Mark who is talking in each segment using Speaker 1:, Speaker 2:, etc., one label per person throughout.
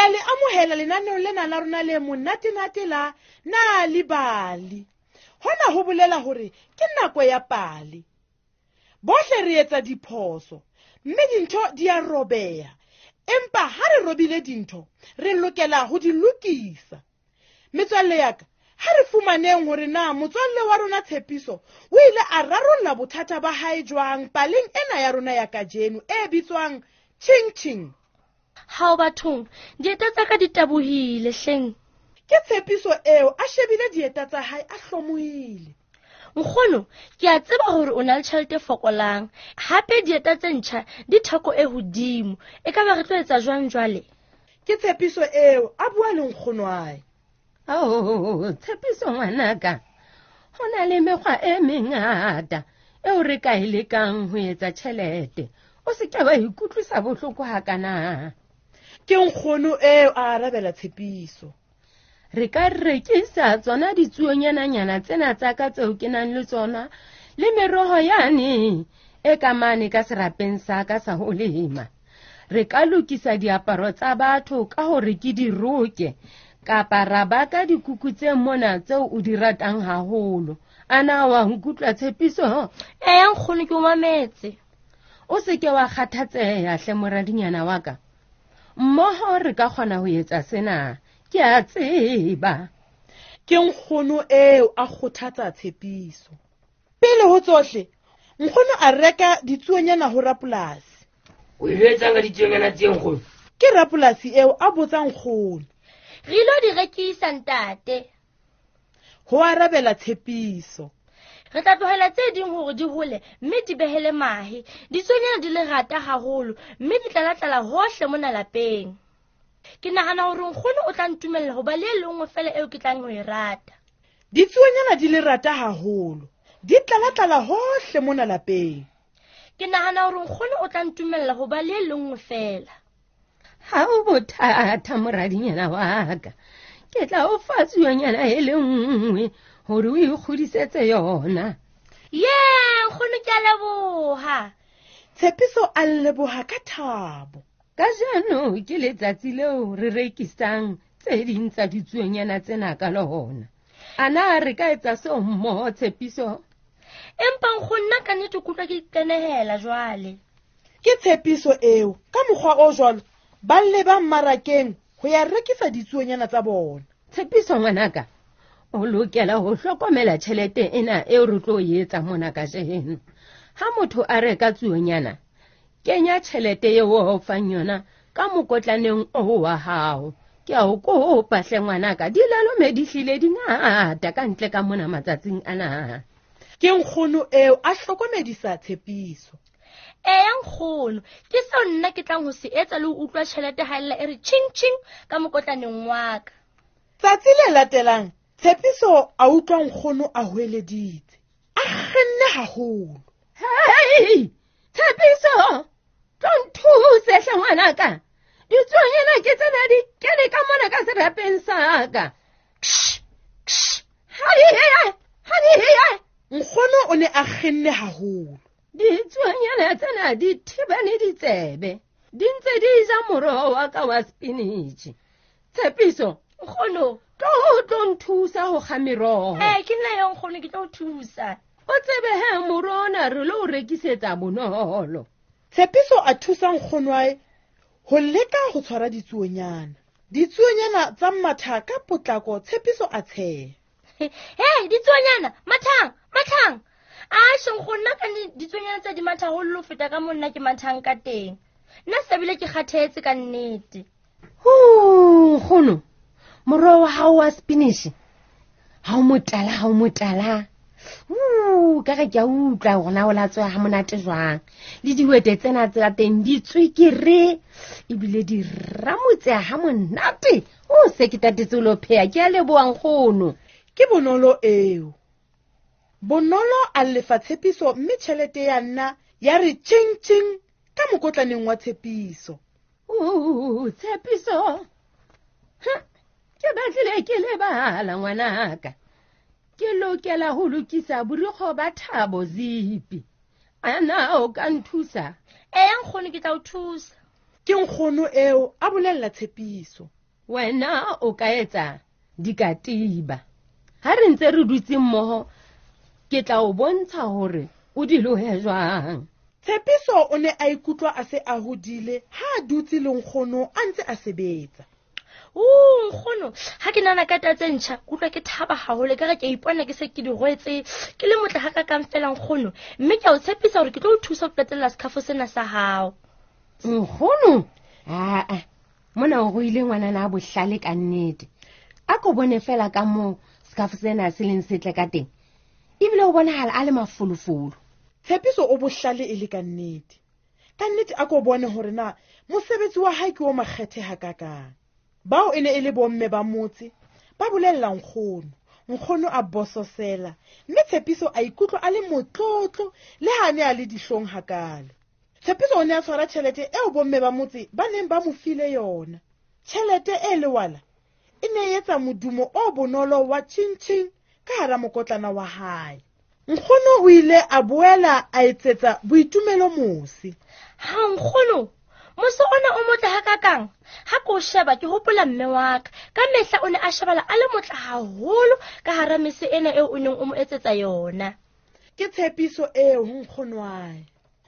Speaker 1: a le amohela lenaneong lena la rona le monatenate la na le bali. Hona ho bolela hore ke nako ya pale. Bohle re etsa diphoso, mme dintho di a robeha. Empa ha re robile dintho, re lokela ho di lokisa. Metswalle ya ka, ha re fumaneng hore na motswalle wa rona Tshepiso o ile a rarolla bothata ba hae jwang paleng ena ya rona ya kajeno e bitswang Ching Ching.
Speaker 2: Hao bathong, dieta tsa ka di tabohile hleng.
Speaker 1: Ke Tshepiso eo a shebile dieta tsa hae a hlomohile.
Speaker 2: Nkgono, ke a tseba hore o na le tjhelete e fokolang. Hape dieta tse ntjha di theko e hodimo. E ka ba re tlo etsa jwang jwale?
Speaker 1: Ke Tshepiso eo a bua le nkgonwae.
Speaker 3: Oh, Tshepiso ngwanaka, ho na le mekgwa e mengata eo re ka e lekang ho etsa tjhelete. O se ke wa ikutlwisa bohloko hakana.
Speaker 1: Ke nkgono eo a arabela Tshepiso.
Speaker 3: Re ka rekisa tsona ditsuonyananyana tsena tsa ka tseo ke nang le tsona le meroho yane e ka mane ka serapeng sa ka sa ho lema. Re ka lokisa diaparo tsa batho ka hore ke di roke, kapa ra baka dikuku tse mona tseo o di ratang haholo. A na wa nkutlwa Tshepiso?
Speaker 2: Ee, nkgono, ke o mametse.
Speaker 3: O se ke wa kgathatseha hle moradinyana wa ka. Mmoho re ka kgona ho etsa sena, ke a tseba.
Speaker 1: Ke nkgono eo a kgothatsa Tshepiso. Pele ho tsohle, nkgono a reka ditsuonyana ho rapolasi.
Speaker 4: O ilo etsang ka ditsuonyana tse nkgono?
Speaker 1: Ke rapolasi eo a botsa nkgono.
Speaker 2: Re ilo di rekisa ntate.
Speaker 1: Ho arabela Tshepiso.
Speaker 2: Re tla tlohela tse ding hore di hole mme di behele mahe. Ditsuonyana di le rata haholo mme di tlala-tlala hohle mona lapeng. Ke nahana hore nkgono o tla ntumella ho ba le e lengwe fela eo ke tlang ho e rata.
Speaker 1: Ditsuonyana di le rata haholo, di tlala-tlala hohle mona lapeng.
Speaker 2: Ke nahana hore nkgono o tla ntumella ho ba le e lengwe fela.
Speaker 3: Ha o bothata moradinyana wa ka. Ke tla o fa tsuonyana e le nngwe hore o ikgodisetse yona.
Speaker 2: Ye, nkgono ke a leboha.
Speaker 1: Tshepiso a leboha ka thabo.
Speaker 3: Kajeno ke letsatsi leo re rekisang tse ding tsa ditsuonyana tsena ka lona. A na re ka etsa seo mmoho, Tshepiso?
Speaker 2: Empa nkgono nna ka nnete ke utlwa ke iqenehela jwale.
Speaker 1: Ke Tshepiso eo ka mokgwa o jwalo ba leba mmarakeng ho ya rekisa ditsuonyana tsa bona.
Speaker 3: Tshepiso ngwanaka, o lokela ho hlokomela tjhelete ena eo re tlo e etsa mona kajeno. Ha motho a reka tsuonyana, kenya tjhelete eo o fang yona ka mokotlaneng oo wa hao. Ke a o kopa hle ngwanaka, dilalome di hlile di ngata ka ntle ka mona matsatsing ana.
Speaker 1: Ke nkgono eo a hlokomedisa Tshepiso.
Speaker 2: Eya nkgono, ke seo nna ke tlang ho se etsa le ho utlwa tjhelete ha ella e re tjhing tjhing ka mokotlaneng wa ka.
Speaker 1: Tsatsi le latelang, Tshepiso a utlwa nkgono a hweleditse. A kgenne haholo.
Speaker 3: Hei, Tshepiso, tlo nthuse hle ngwanaka. Ditsuonyana ke tsena di kene ka mona ka serapeng sa ka. Ksh, ksh, hai, hai, hai, hai, hai, hai.
Speaker 1: Nkgono o ne a kgenne haholo.
Speaker 3: Ditsuonyana tsena di thibane ditsebe, di ntse di ja moroho wa ka wa spinach. Tshepiso,
Speaker 2: Nkgono,
Speaker 3: tlo o tlo nthusa ho kga meroho.
Speaker 2: Ee, ke nna eo nkgono, ke tlo o thusa.
Speaker 3: O tsebe he moroho ona re lo o rekisetsa bonolo.
Speaker 1: Tshepiso a thusa nkgonwae ho leka ho tshwara ditsuonyana. Ditsuonyana tsa matha ka potlako, Tshepiso a tsheha.
Speaker 2: Hei, ditsuonyana, mathang, mathang. Atjhe, nkgono, nna ka nnete ditsuonyana tse di matha haholo ho feta ka moo nna ke mathang ka teng. Nna se bile ke kgathetse ka nnete.
Speaker 3: Huu, nkgono, moroho wa hao wa spinach ha o motala, ha o motala. Huu, ka re ke a utlwa hore na o latsweha ha monate jwang. Le dihwete tsena tsa teng di tswekere, ebile di ramotseha ha monate. O se ke tatetse o lo pheha, ke a leboha nkgono.
Speaker 1: Ke Bonolo eo. Bonolo a lefa Tshepiso mme tjhelete ya nna ya re tjhing tjhing ka mokotlaneng wa Tshepiso.
Speaker 3: Oo, Tshepiso. Ha, ke batlile ke lebala ngwanaka. Ke lokela ho lokisa borikgwe ba Thabo zipi. A na o ka nthusa?
Speaker 2: Eya nkgono, ke tla o thusa.
Speaker 1: Ke nkgono eo a bolella Tshepiso.
Speaker 3: Wena o ka etsa dikatiba. Ha re ntse re dutse mmoho, ke tla o bontsha hore o di lohe jwang.
Speaker 1: Tshepiso o ne a ikutlwa a se a hodile ha a dutse le nkgono a ntse a sebetsa.
Speaker 2: Nkgono, ha ke nahana ka taba tse ntjha, ke utlwa ke thaba haholo, ekare ke a ipona ke se ke di rwetse, ke le motle hakakang fela nkgono, mme ke a o tshepisa hore ke tlo o thusa ho qetella sekhafo sena sa hao.
Speaker 3: Nkgono, aa, mona o ruile ngwanana a bohlale ka nnete. A ko bone fela ka moo sekhafo sena se leng setle ka teng, ebile o bonahala a le mafolofolo.
Speaker 1: Tshepiso o bohlale e le ka nnete. Ka nnete a ko bone hore na mosebetsi wa hae ke o makgethe hakakang. Bao e ne e le bomme ba motse, ba bolella nkgono. Nkgono a bososela, mme Tshepiso a ikutlwa a le motlotlo le ha a ne a le dihlong hakalo. Tshepiso o ne a tshwara tjhelete eo bomme ba motse ba neng ba mo file yona. Tjhelete e lewala e ne e etsa modumo o bonolo wa tjhing-tjhing ka hara mokotlana wa hae. Nkgono o ile a boela a etsetsa Boitumelo mose.
Speaker 2: Ha nkgono, mose ona o motle hakakang. Ha ke o sheba ke hopola mme wa ka. Ka mehla o ne a shebala a le motle haholo ka hara mese ena eo o neng o mo etsetsa yona.
Speaker 1: Ke tshepiso eo ho nkgono wa hae.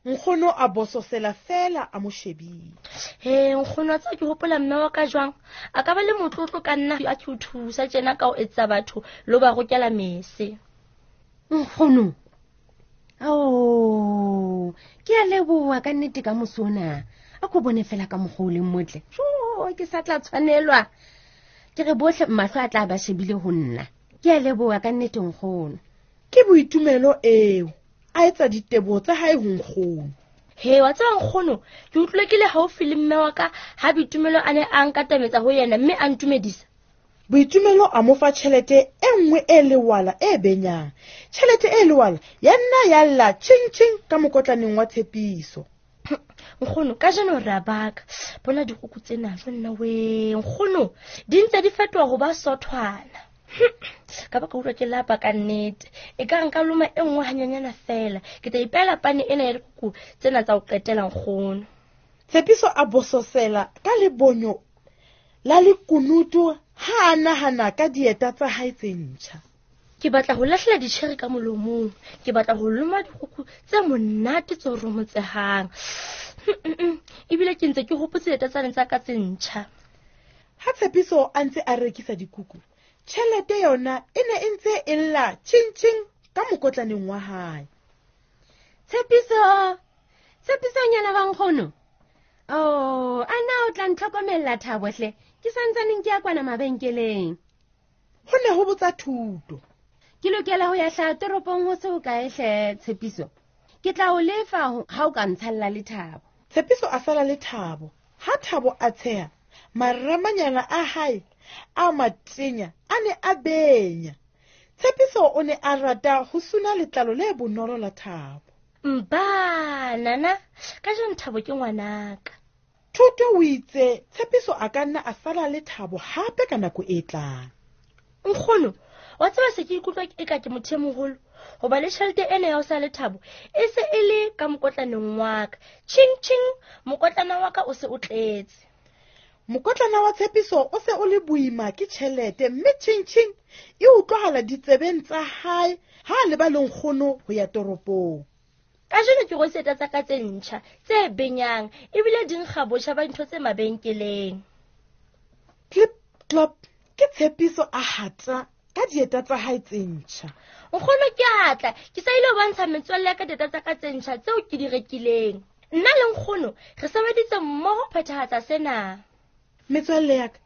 Speaker 1: Nkgono a bososela fela a mo shebile.
Speaker 2: He, nkgono, a tseba ke hopola mme wa ka jwang? A ka ba le motlotlo ka nna a ke o thusa tjena ka ho etsa batho le ho ba rokela mese.
Speaker 3: Nkgono, ao, ke a leboha ka nnete ka mose ona. A ko bone fela ka mokgwa o leng motle. Jo, ke sa tla tshwanelwa. Ke re bohle mahlo a tla ba shebile ho nna. Ke a leboha ka nnete nkgono.
Speaker 1: Ke Boitumelo eo a etsa diteboho tsa hae ho nkgono.
Speaker 2: He, wa tseba nkgono, ke utlwile ke le haufi le mme wa ka ha Boitumelo a ne a nkatametsa ho yena mme a ntumedisa.
Speaker 1: Boitumelo a mo fa tjhelete e nngwe e lewala e benyang. Tjhelete e lewala ya nna ya lla tjhing-tjhing ka mokotlaneng wa Tshepiso.
Speaker 2: Nkgono, kajeno re a baka. Bona dikgoku tsena, jo nna we. Nkgono, di ntse di fetoha ho ba sothwana. Ka ba ka utlwa ke lapa ka nnete. E ka nka loma e nngwe hanyanyana fela. Ke tla ipeela pane ena ya dikgoku tsena tsa ho qetela nkgono.
Speaker 1: Tshepiso a bososela ka lebonyo la lekunutu ha a nahana ka dieta tsa hae tse ntjha.
Speaker 2: Ke batla ho lahlela ditjhere ka molomong. Ke batla ho loma dikgoku tse monate tse romotsehang. Ebile ke ntse ke hopotse dieta tsane tsa ka tse ntjha.
Speaker 1: Ha Tshepiso a ntse a rekisa dikuku, tjhelete yona e ne e ntse e lla tjhing-tjhing ka mokotlaneng wa hae.
Speaker 3: Tshepiso, Tshepiso nyana wa nkgono. Oh, a na o tla ntlhokomella Thabo hle? Ke santsaneng ke ya kwana mabenkeleng.
Speaker 1: Ho ne ho botsa Thuto.
Speaker 3: Ke lokela ho ya hlaha toropong ho se ho kae hle, Tshepiso? Ke tla o lefa ha o ka ntshalla le Thabo.
Speaker 1: Tshepiso a sala le Thabo. Ha Thabo a tsheha, maramanyana a hae a matenya a ne a benya. Tshepiso o ne a rata ho suna letlalo le bonolo la Thabo.
Speaker 2: Mba, nana, kajeno Thabo ke ngwanaka.
Speaker 1: Thuto o itse Tshepiso a ka nna a sala le Thabo hape ka nako e tlang.
Speaker 2: Nkgono, wa tseba se ke ikutlwa e ka ke motho e moholo, hoba le tjhelete ena ya ho sala le Thabo e se e le ka mokotlaneng wa ka. Tjhing, tjhing, mokotlana wa ka o se o tletse.
Speaker 1: Mokotlana wa Tshepiso o se o le boima ke tjhelete, mme tjhing, tjhing e utlwahala ditsebeng tsa hae ha a leba le nkgono ho ya toropong.
Speaker 2: Kajeno ke rwetse dieta tsa ka tse ntjha, tse benyang, ebile di nkga botjha ba dintho tse mabenkeleng.
Speaker 1: Clip, clop, ke Tshepiso a hata ka dieta tsa hae tse ntjha.
Speaker 2: Nkgono ke a tla, ke sa ile ho bontsha metswalle ya ka dieta tsa ka tse ntjha tseo ke di rekileng. Nna le nkgono re sebeditse mmoho ho phethahatsa sena.
Speaker 1: Metswalle ya ka,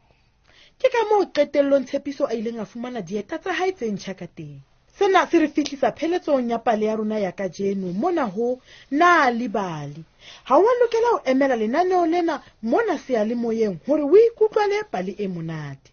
Speaker 1: ke ka moo qetellong Tshepiso a ileng a fumana dieta tsa hae tse ntjha ka teng. Sena se re fihlisa pheletsong ya pale ya rona ya kajeno mona ho Nal'ibali. Ha o a lokela ho emela lenaneo lena mona seyalemoyeng hore o ikutlwele pale e monate.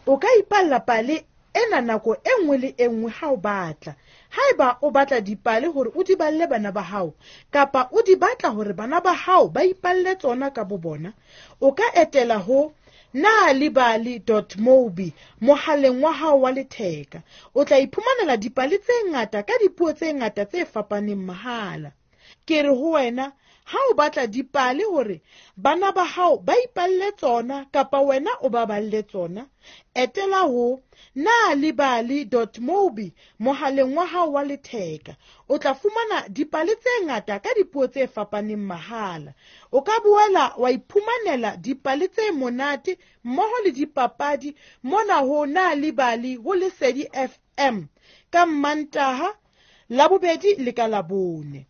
Speaker 1: O ka ipalla pale ena nako e nngwe le e nngwe ha o batla. Haeba o batla dipale hore o di balle bana ba hao, kapa o di batla hore bana ba hao ba ipalle tsona ka bo bona, o ka etela ho nalibali dot mobi mohaleng wa hao wa letheka. O tla iphumanela dipale tse ngata ka dipuo tse ngata tse fapaneng mahala. Ke re ho wena, Ha o batla dipale hore bana ba hao ba ipalle tsona kapa wena o ba balle tsona, etela ho nalibali.mobi mohaleng wa hao wa letheka. O tla fumana dipale tse ngata ka dipuo tse fapaneng mahala. O ka boela wa iphumanela dipale tse monate mmoho le dipapadi mona ho Nalibali ho Lesedi FM ka Mmantaha, Labobedi le ka Labone.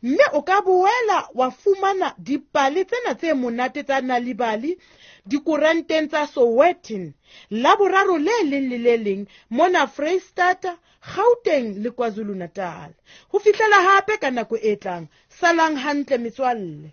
Speaker 1: Mme o ka boela wa fumana dipale tsena tse monate tsa Nalibali dikoranteng tsa Sowetan Laboraro le leng le le leng mona Freistata, Gauteng le KwaZulu-Natal. Ho fihlela hape ka nako e tlang, salang hantle metswalle.